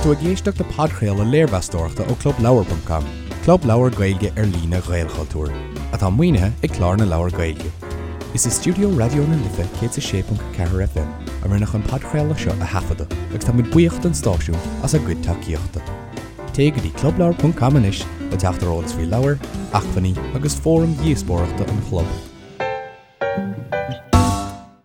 tú ag éisteacht le podchraoladh léirmheastóireachta ó ClubLeabhar.com, club leabhar Gaeilge ar líne Ghaelchultúir, atá maoinithe ag Clár na Leabhar Gaeilge. Is i stiúideo Raidió na Life 106.4 FM a rinneadh an podchraoladh seo a thaifeadadh agus tá muid buíoch don stáisiún as a gcuid tacaíochta. Téigh go dtí clubleabhar.com anois le teacht ar eolas faoi leabhair, acmhainní agus fóraim dhíospóireachta an chlub.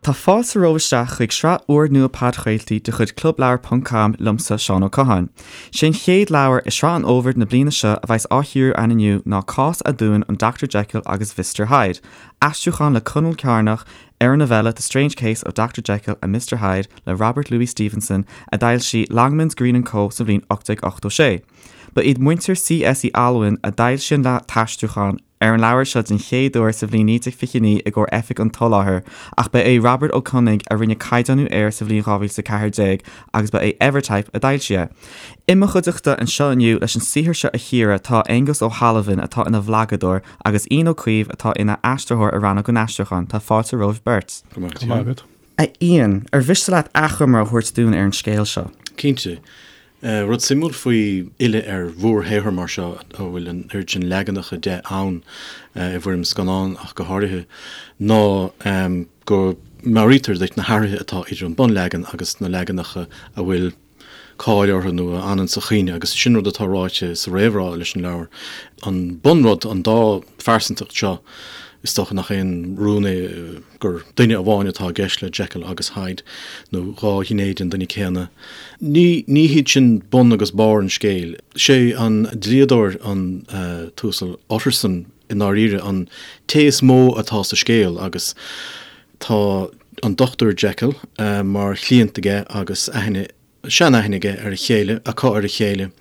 Tá fáilte romhaibh isteach chuig sraith úrnua podchraoltaí de chuid Clubleabhar ponc com liomsa, Seán Ó Catháin. Sé an chéad leabhar i sraith an fhómhair na bliana seo a bheas á chíoradh againn inniu ná Cás Aduain an Dr Jekyll agus Mhister Hyde, aistriúchán le Conall Cearnach ar an novella The Strange Case of Dr Jekyll and Mr Hyde le Robert Louis Stevenson a d'fhoilsigh Longmans, Green and Co sa bhliain 1886. Ba iad muintir C.S. Uí Almhain a d'fhoilsigh an t-aistriúchán ar an leabhar seo den chéad uair sa bhliain 1929 i gcomhair Oifig an tSoláthair, ach ba é Robert Ó Conaing a rinne caighdeánú air sa bhliain 2014 agus ba é Evertype a d'fhoilsigh é. I mo chuideachta anseo inniu leis an saothar seo a chíoradh tá Aengus Ó hAlmhain atá ina bhlagadóir agus Ian Ó Caoimh atá ina aistritheoir i Rannóg an Aistriúcháin. Tá fáilte romhaibh beirt. Go maith agat. A Iain, ar mhiste leat achoimre a thabhairt dúinn ar an scéal seo? Cinnte. Rud suimiúil faoi fhilleadh ar mhórshaothar mar seo, a bhfuil an oiread sin leaganacha de ann, i bhfoirm scannán ach go háirithe, ná go meabhraítear duit na hathruithe atá idir an bunleagan agus na leaganacha a bhfuil cáil orthu nó a fhanann sa chuimhne, agus sin rud atá ráite sa réamhrá leis an leabhar. An bunrud, an dá phearsantacht seo, is dócha nach aon rún é gur duine amháin atá i gceist le Jekyll agus Hyde, nó dhá ghné den duine céanna. Ní ní hiad sin bun agus barr an scéil. Sé an dlíodóir, an tUasal Utterson, i ndáiríre, an té is mó atá sa scéal agus tá an Dochtúir Jekyll mar chliant aige agus aithne, seanaithne aige ar a chéile, acu ar a chéile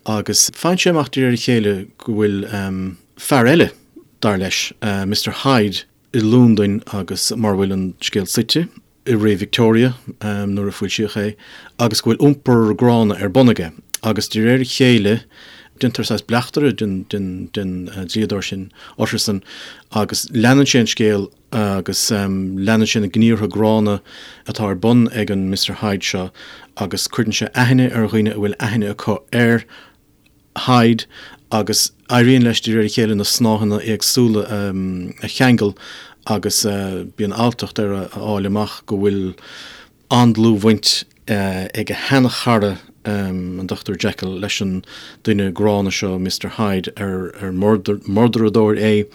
agus faigheann sé amach de réir a chéile go bhfuil fear eile, dar leis, Mister Hyde, i Londain agus mar a bhfuil an scéal suite, i ré Victoria nuair a foilsíodh é, agus go bhfuil iompar gránna ar bun aige. Agus de réir a chéile, déantar saghas bleachtaire den dlíodóir sin, Utterson, agus leanann sé an scéal agus leanann sé na gníomhartha gránna atá ar bun ag an Mister Hyde seo agus cuireann sé aithne ar dhaoine a bhfuil aithne acu ar Hyde agus éiríonn leis de réir a chéile na snáitheanna éagsúla a cheangal agus bíonn alltacht air a fháil amach go bhfuil an-dlúthbhaint ag a sheanchara, an Dr Jekyll, leis an duine gránna seo, Mister Hyde, ar murdaradóir é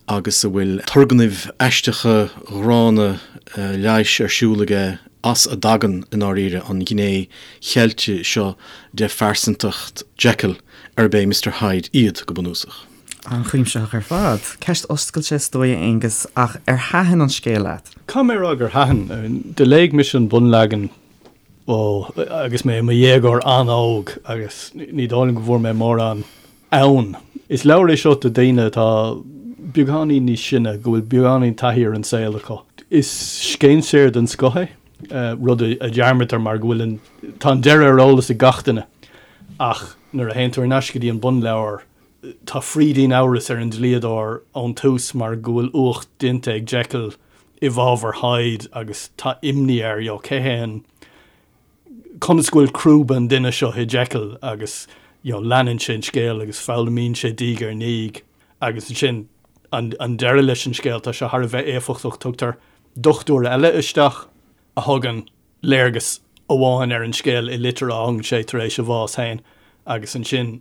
agus a bhfuil turgnaimh aisteacha ghránna leighis ar siúl aige. as a dtagann, i ndáiríre, an ghné cheilte seo de phearsantacht Jekyll, arb é Mister Hyde iad, go bunúsach. An-chuimsitheach ar fad. Ceist oscailte is dóigh, a Aonghus, ach ar thaitin an scéal leat? Caithfidh mé a rá gur thaitin. Do léigh mise an bunleagan, ó, agus mé i mo dhéagóir an-óg agus ní dóigh liom go bhfuair mé mórán ann. Is leabhar é seo do dhaoine atá beagáinín níos sine, go bhfuil beagáinín taithí ar an saol acu. Is scéinséir den scoth é, rud a dhearmadtar mar go bhfuil an, tá an deireadh ar eolas ag gach duine. Ach nuair a théann tú ar ais go dtí an bunleabhar, tá frídín amhrais ar an dlíodóir ón tús mar go bhfuil uacht déanta ag Jekyll i bhfabhar Hyde agus tá imní air, you know, cé hé an, conas go bhfuil crúba an duine seo i Jekyll agus you know leanann sé an scéal agus foghlaimíonn sé diaidh ar ndiaidh agus ansin an an deireadh leis an scéal tá sé thar a bheith éifeachtach tugtar dochtúir eile isteach a thugann léargas amháin ar an scéal i litir a fhágann sé tar éis a bhás féin agus ansin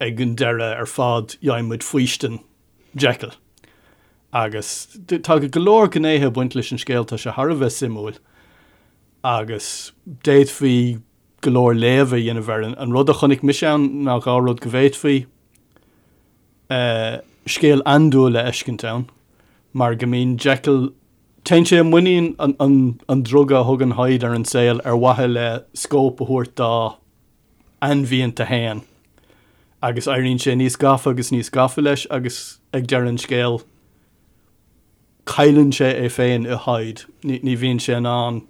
ag an deireadh ar fad gheibheann muid faoistin Jekyll agus tá go leor gnéithe ag baint leis an scéal tá sé thar a bheith suimiúil. agus d'fhéadfaí go leor léamh a dhéanamh air. An rud a chonaic mise ann ná dhá rud, go bhféadfaí scéal andúil a fheiscint ann, mar go mbíonn Jekyll, téann sé i muinín an druga a thugann Hyde ar an saol ar mhaithe le scóip a thabhairt dá ainmhianta féin, agus éiríonn sé níos gafa agus níos gafa leis agus ag deireadh an scéil, cailleann sé é féin i Hyde, ní bhíonn sé in ann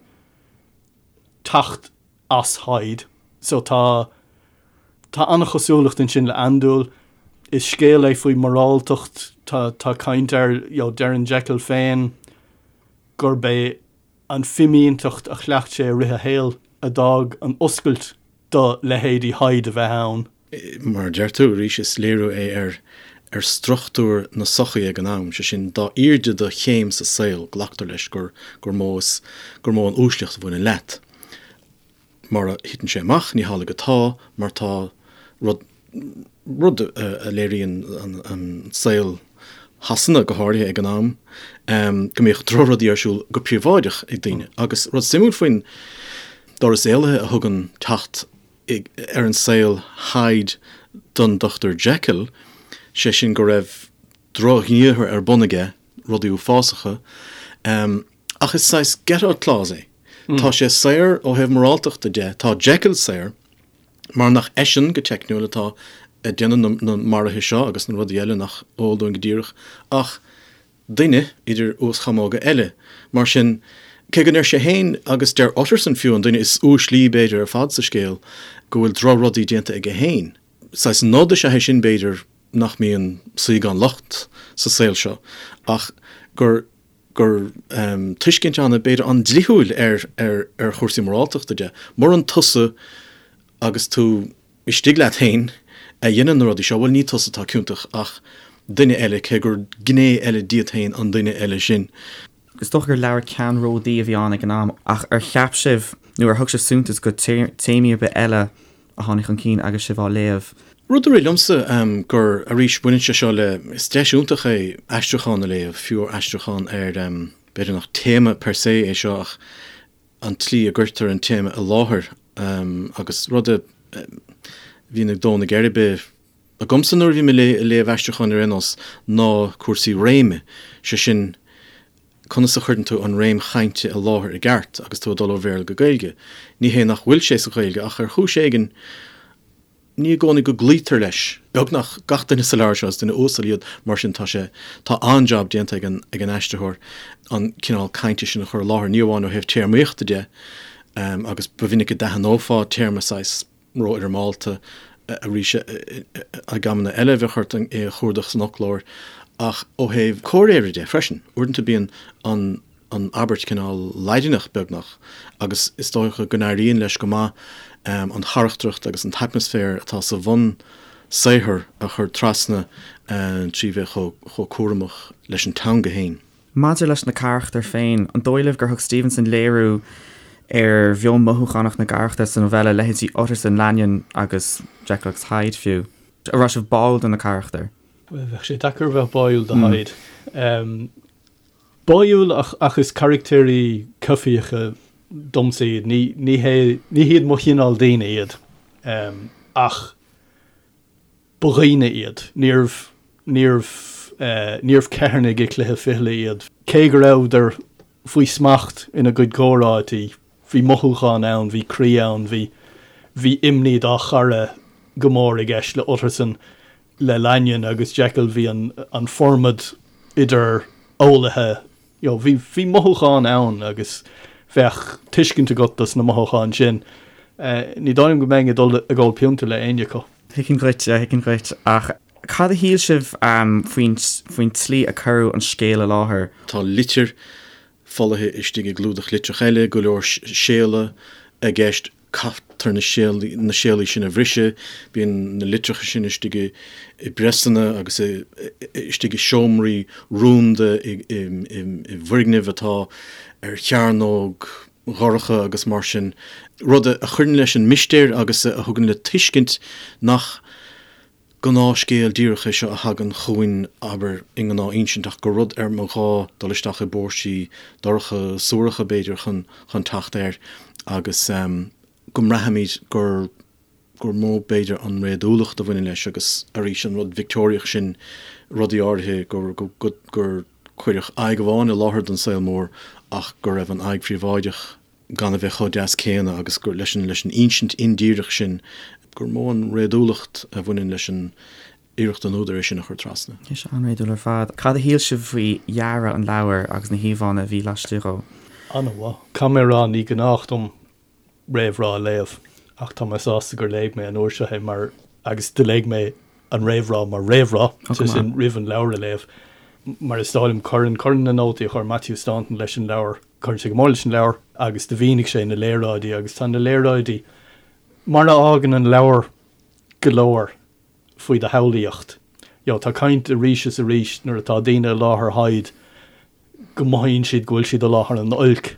teacht as Hyde. So tá tá an-chosúlacht ansin le andúil. Is scéal é faoi mhoráltacht, tá tá caint air, you know, deireann Jekyll féin gurb é an fimínteacht a chleacht sé i rith a shaoil a d'fhág an oscailt. do leithéidí Hyde a bheith ann. Mar a deir tú, arís, is léiriú é ar ar struchtúr na sochaí ag an am, sé sin, dá airde do chéim sa saol, glactar leis gur gur mó is gur mó an uaisleacht a bhaineann leat. Mar a thiteann sé amach, ní hamhlaidh atá, mar tá rud rud a léiríonn an saol Shasana, go háirithe ag an am, go mbíodh drochrudaí ar siúl go príobháideach ag daoine. Agus rud suimiúil faoin doras éalaithe a thugann teacht ar an saol Hyde don Dr Jekyll, sé sin go raibh drochghníomhartha ar bun aige, rudaí uafásacha, ach is saghas get out clause é. Tá sé saor ó thaobh moráltachta de, tá Jekyll saor, mar nach eisean, go teicniúil, atá ag déanamh na maruithe seo agus na rudaí eile nach eol dúinn go díreach, ach duine idir uaschamóga eile. Mar sin, cé go ndeir sé féin, agus deir Utterson fiú, an duine is uaislí b'fhéidir ar fad sa scéal, go bhfuil drochrudaí déanta aige féin, saghas nod is ea é sin b'fhéidir nach mbíonn saoi gan locht sa saol seo, ach gur gur tuiscint an, b'fhéidir, an-dlíthiúil ar ar chúrsaí moráltachta de. Muran tusa agus tú istigh leat féin a dhéanann na rudaí seo, bhuel ní tusa atá ciontach ach duine eile, cé gur gné eile díot féin an duine eile sin. Is dócha gur leabhar ceannródaí a bhí ann ag an am, ach ar cheap sibh nó ar thug sibh suntas go téamaí ar bith eile a tháinig chun cinn agus sibh á léamh? Rud a rith liomsa gur, arís, baineann sé seo le, is deis iontach é aistriúchán a léamh, fiú aistriúchán ar, b'fhéidir nach téama per se é seo ach an tslí a gcuirtear an téama i láthair agus rud a bhíonn ag dó na geirbe agamsa nuair a bhím ag léamh aistriúcháin ar aon nós ná cúrsaí réime, sé sin conas a chuireann tú an réim chainte i láthair i gceart agus tú ag dul ó Bhéarla go Gaeilge. Ní hé nach bhfuil sé sa Ghaeilge ach ar chúis éigin ní i gcónaí go gcloítear leis. Beagnach gach duine sa leabhar seo is duine uasal iad mar sin tá sé, tá an-jab déanta ag an, ag an aistritheoir an cineál cainte sin a chur i láthair, ní amháin ó thaobh téarmaíochta de agus ba mhinic a d'aithneofá téarma saghas rófhoirmeálta arís ag amanna eile bheadh ort é a chuardach san fhoclóir ach ó thaobh comhréire de freisin. Uaireanta bíonn an an abairt cineál Laidineach beagnach agus is dócha go n-éiríonn leis go maith an charachtracht agus an t-atmaisféar atá sa bhunsaothar a chur trasna trí bheith chomh cúramach leis an teanga féin. Maidir leis na carachtair féin, an dóigh libh gur thug Stevenson léiriú ar mheon mothúchánach na gcarachtar sa novella, leithéidí Utterson, Lanyon agus Jekyll agus Hyde fiú? An raibh sibh báúil do na carachtair? Bhuel, bheadh sé deacair a bheith báúil do Hyde. Báúil ach ach is carachtéirí coimhthíocha domsa iad. Ní ní hé ní hiad mo chineál daoine iad. Ach ba dhaoine iad. Níorbh níorbh níorbh ceithearnaigh i gcluiche fichille iad. Cé go rabhadar faoi smacht ina gcuid comhráití, bhí mothúchán ann, bhí croí ann, bhí bhí imní dá chara go mór i gceist le Utterson. Le Lanyon agus Jekyll bhí an an formad idir eolaithe, you know, bhí bhí mothúcháin ann agus bheadh tuiscint agat dos na mothúcháin sin. Ní dóigh liom go mbeinn ag dul ag ól pionta le éinne acu. Thuigfinn dhuit, thuigfinn dhuit. Ach cad a shíl sibh faoin faoin tslí a cuireadh an scéal i láthair? Tá litir folaithe istigh i gclúdach litreach eile, go leor séala i gceist, caithfear na séalaí sin a bhriseadh, bíonn na litreacha sin istigh i bpriosanna agus istigh i seomraí rúnda i bhfoirgnimh atá ar chearnóg dhorcha agus mar sin, rud a chuireann leis an mistéir agus a thugann le tuiscint nach gnáthscéal díreach é seo a thagann chugainn, abair, i ngnáth-insint, ach gur rud ar mba ghá dul isteach i bpóirsí dorcha, suaracha, b'fhéidir, chun chun teacht air agus go mbraithimid gur gur mó, b'fhéidir, an réadúlacht a bhaineann leis agus, arís, an rud Victeoiriach sin, rudaí áirithe, gur go gur cuireadh aghaidh amháin i láthair don saol mór ach go raibh an aghaidh phríobháideach gan a bheith chomh deas céanna agus gur leis an leis an insint indíreach sin gur mó an réadúlacht a bhaineann leis an iarracht an údair é sin a chur trasna. Tá sé an-réadúil ar fad. Cad a shíl sibh faoi dhearadh an leabhair agus na híomhánna a bhí laistigh dhó? An-mhaith. Caithfidh mé a rá, ní gnách dom réamhrá a léamh ach tá mé sásta gur léigh mé an uair seo é mar agus do léigh mé an réamhrá mar réamhrá, sé sin roimh an leabhar a léamh. Mar is dóigh liom cuireann cuireann na nótaí a chuir Matthew Staunton leis an leabhar, cuireann sé go mór leis an leabhar agus do mhínigh sé na léaráidí agus tá na léaráidí. Mar a fhágann an leabhar go leor faoi do shamhlaíocht. You know, tá caint arís is arís nuair atá daoine i láthair Hyde go mothaíonn siad go bhfuil siad i láthair an oilc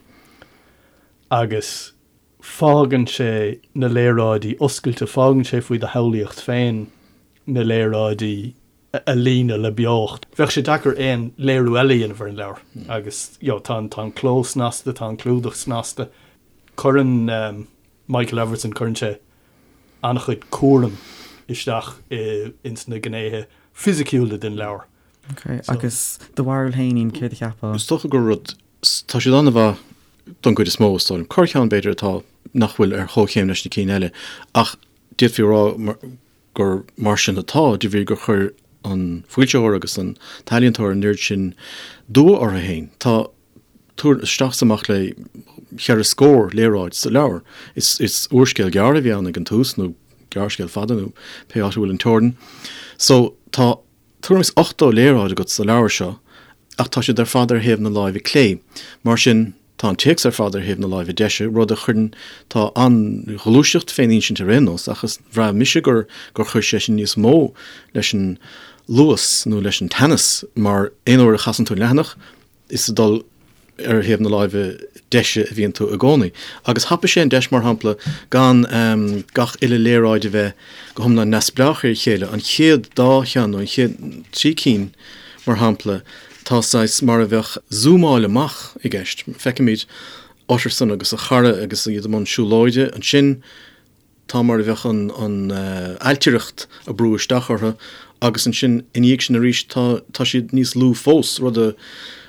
agus fágann sé na léaráidí oscailte, fágann sé faoi do shamhlaíocht féin na léaráidí a líonadh le beocht. Bheadh sé deacair aon léiriú eile a dhéanamh ar an leabhar agus you know, tá an, tá an cló snasta, tá an clúdach snasta. Cuireann Michael Everson, cuireann sé an-chuid cúraim isteach ins na gnéithe fisiciúla den leabhar. Ok, agus do bharúil féin, Ian, céard a cheapfá? Is dócha gur rud, tá siad an-mhaith don gcuid is mó, is dóigh liom. Corrcheann, b'fhéidir, atá, nach bhfuil ar chomhchéim leis na cinn eile, ach d'fhéadfaí a rá gur mar sin atá de bhrí gur chuir an foilsitheoir agus an t-ealaíontóir an oiread sin dua orthu féin. Tá tuairim isteach is amach le cheithre scór léaráid sa leabhar. Is úrscéal gearr a bhí ann ag an tús, nó gearrscéal fada, nó pé áit a bhfuil an teorainn. So, tá tuairim is 80 léaráid agat sa leabhar seo, ach tá siad ar fad ar thaobh na láimhe clé. Mar sin, tá an téacs ar fad ar thaobh na láimhe deise, rud a chuireann, tá an-ghluaiseacht fén insint ar aon nós, ach is, bhraith mise gur, gur chuir sé sin níos mó leis an luas nó leis an teannas, mar aon uair a chasann tú an leathanach, is ag dul ar thaobh na láimhe deise a bhíonn tú i gcónaí. Agus thapaigh sé an deis, mar shampla, gan gach uile léaráid a bheith go hiomlán neamhspleách ar a chéile. An chéad dá cheann, nó an chéad trí cinn, mar shampla, tá saghas mar a bheadh zúmáil amach i gceist. Feicimid Utterson agus a chara agus iad i mbun siúlóide. Ansin tá mar a bheadh an ailtireacht ag brú isteach orthu agus ansin ina dhiaidh sin arís tá tá siad níos lú fós, rud a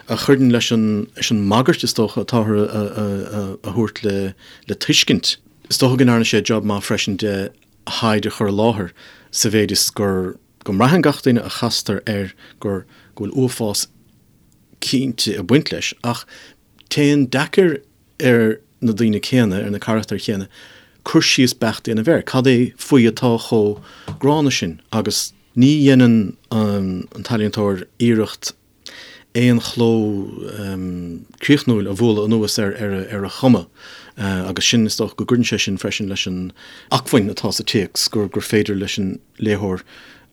a chuireann leis an leis an mbagairt is dócha atáthar a a a thabhairt le le tuiscint. Is dócha go ndearna sé jab maith freisin de Hyde a chur i láthair sa mhéid is gur go mbraitheann gach duine a chastar air gur go bhfuil uafás cinnte ag baint leis ach téann deacair ar na daoine céanna, ar na carachtair chéanna, cur síos beacht a dhéanamh air. Cad é faoi atá chomh gránna sin? Agus ní dhéanann an t-ealaíontóir iarracht aon chló críochnúil a bhualadh anuas ar a chuma agus sin, is dócha go gcuireann sé sin freisin leis an acmhainn atá sa téacs, gur féidir leis an léitheoir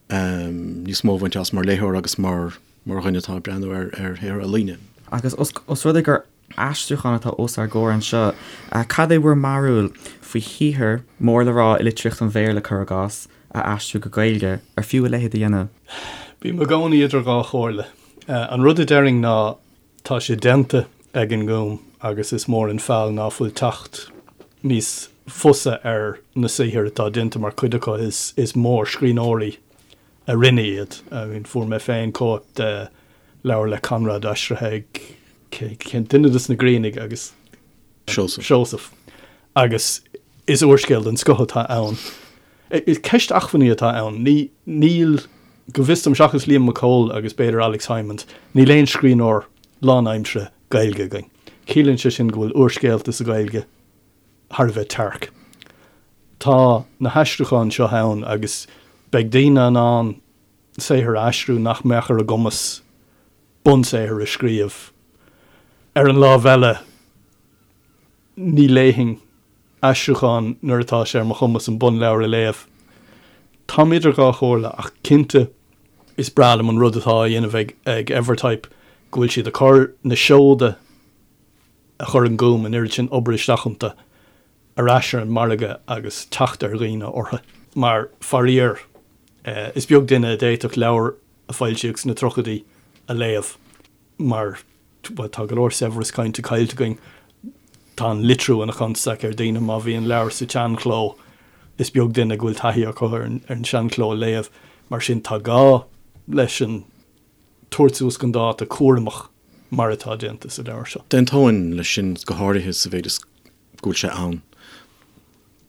níos mó a bhaint as mar léitheoir agus mar dhuine atá ag breathnú ar shaothar ealaíne. Agus os rud é gur aistriúchán atá os ár gcomhair anseo. Cad é bhur mbarúil faoi shaothar mór le rá i litríocht an Bhéarla, cuir i gcás, a aistriú go Gaeilge? Ar fiú a leithéid a dhéanamh? Bím i gcónaí idir dhá chomhairle. An rud a déarfainn ná tá sé déanta ag an nGúm agus is mór an feall ná fuil teacht níos fusa ar na saothair atá déanta mar cuid acu is mórscríbhneoirí a rinne iad. I mean fuair mé féin cóip de leabhar le Conrad aistrithe ag cén duine dos na Griannaigh agus Seosamh. Seosamh. Agus is úrscéal den scoth atá ann. Is ceist acmhainní atá ann. Ní, níl, go bhfios dom, seachas Liam Mac Cóil agus b'fhéidir Alex Hijmans, níl aon scríbhneoir lánaimseartha Gaeilge againn. Ciallaíonn sé sin go bhfuil úrscéalta sa Ghaeilge thar a bheith tearc. Tá na haistriúcháin seo ann agus beidh daoine in ann saothar a aistriú nach mbeadh ar a gcumas bunsaothar a scríobh. Ar an lámh eile, ní léifinn aistriúchán nuair atá sé ar mo chumas an bunleabhar a léamh. Táim idir dhá chomhairle ach cinnte is breá liom an rud atá á dhéanamh ag Evertype, go bhfuil siad ag cur na seoda a chuir an Gúm an oiread sin obair isteach iontu ar ais ar an margadh agus teacht ar dhaoine orthu. Mar, faraor, is beag duine a d'fhéadfadh leabhar a foilsíodh sna tríochaidí a léamh mar, bhuel, tá go leor saibhreas cainte caillte againn. Tá an litriú ina chonstaic ar dhaoine má bhíonn leabhar sa tseanchló, is beag duine go bhfuil taithí acu ar an seanchló a léamh. Mar sin, tá gá leis an tabhairt suas chun dáta cúramach mar atá déanta sa leabhar seo. D'aontóinn leis sin, go háirithe sa mhéid is go bhfuil sé ann.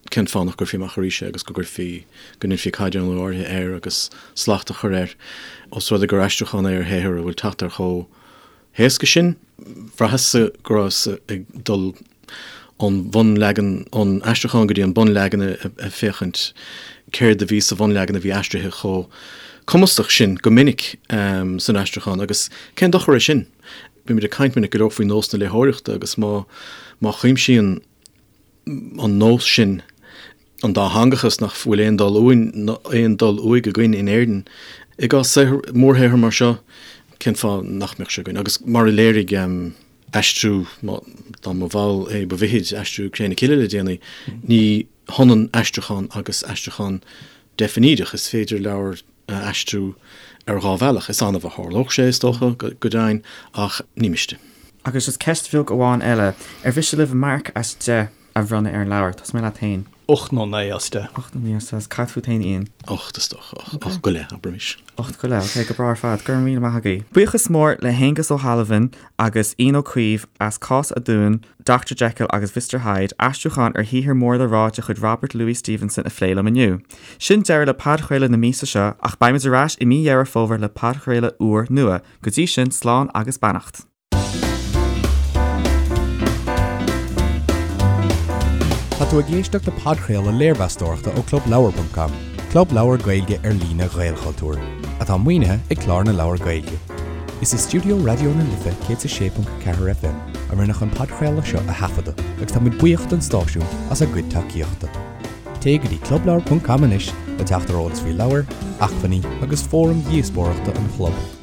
Cén fáth nach gcuirfí amach arís é agus go gcuirfí, go ndéanfaí caighdeánú áirithe air agus slacht a chur air? Ós rud é gur aistriúchán é ar shaothar a bhfuil teacht air chomh héasca sin, bhraitheas-sa go rabhas ag dul ón bhunleagan, ón aistriúchán go dtí an bunleagan ag féachaint céard a bhí sa bhunleagan a bhí aistrithe chomh cumasach sin go minic san aistriúchán agus cén dochar é sin? Bímid ag caint minic go leor faoi nós na léitheoireachta agus má má chuimsíonn an nós sin. An dátheangachas nach bhfuil aon dul uainn, aon dul uaidh againn in Éirinn. I gcás saothar, mórshaothar mar seo, cén fáth nach mbeadh sé againn? Agus mar a léirigh aistriú, dá mba mhall é ba mhithid, aistriú Cré na Cille le déanaí, ní hionann aistriúchán agus aistriúchán deifnídeach. Is féidir leabhar a aistriú ar dhá bhealach. Is annamh a tharlódh sé, is dócha, go deimhin, ach ní miste. Agus just ceist bheag amháin eile, ar mhiste libh marc as 10 a bhronnadh ar an leabhar? Tosóidh mé leat féin. 8 nó 9 as 10. 8 nó 9 as 10. Cad fút féin, Ian? 8 is dócha. 8 go leith, abraimis. 8 go leith, ok, go breá ar fad. Go raibh míle maith agaibh. Buíochas mór le hAonghus Ó hAlmhain agus Ian Ó Caoimh as Cás Aduain, Doctor Jekyll agus Mhister Hyde, aistriúchán ar shaothar mór le rá de chuid Robert Louis Stevenson a phlé liom inniu. Sin deireadh le podchraoladh na míosa seo ach beimid ar ais i mí Dheireadh Fómhair le podchraoladh úr nua. Go dtí sin, slán agus beannacht. Tá tú ag éisteacht le podchraoladh léirmheastóireachta ó ClubLeabhar.com, club leabhar Gaeilge ar líne Ghaelchultúir, atá maoinithe ag Clár na Leabhar Gaeilge. Is i stiúideo Raidió na Life 106.4 FM a rinneadh an podchraoladh seo a thaifeadadh agus tá muid buíoch don stáisiún as a gcuid tacaíochta. Téigh go dtí clubleabhar.com anois le teacht ar eolas faoi leabhair, acmhainní agus fóraim dhíospóireachta an chlub.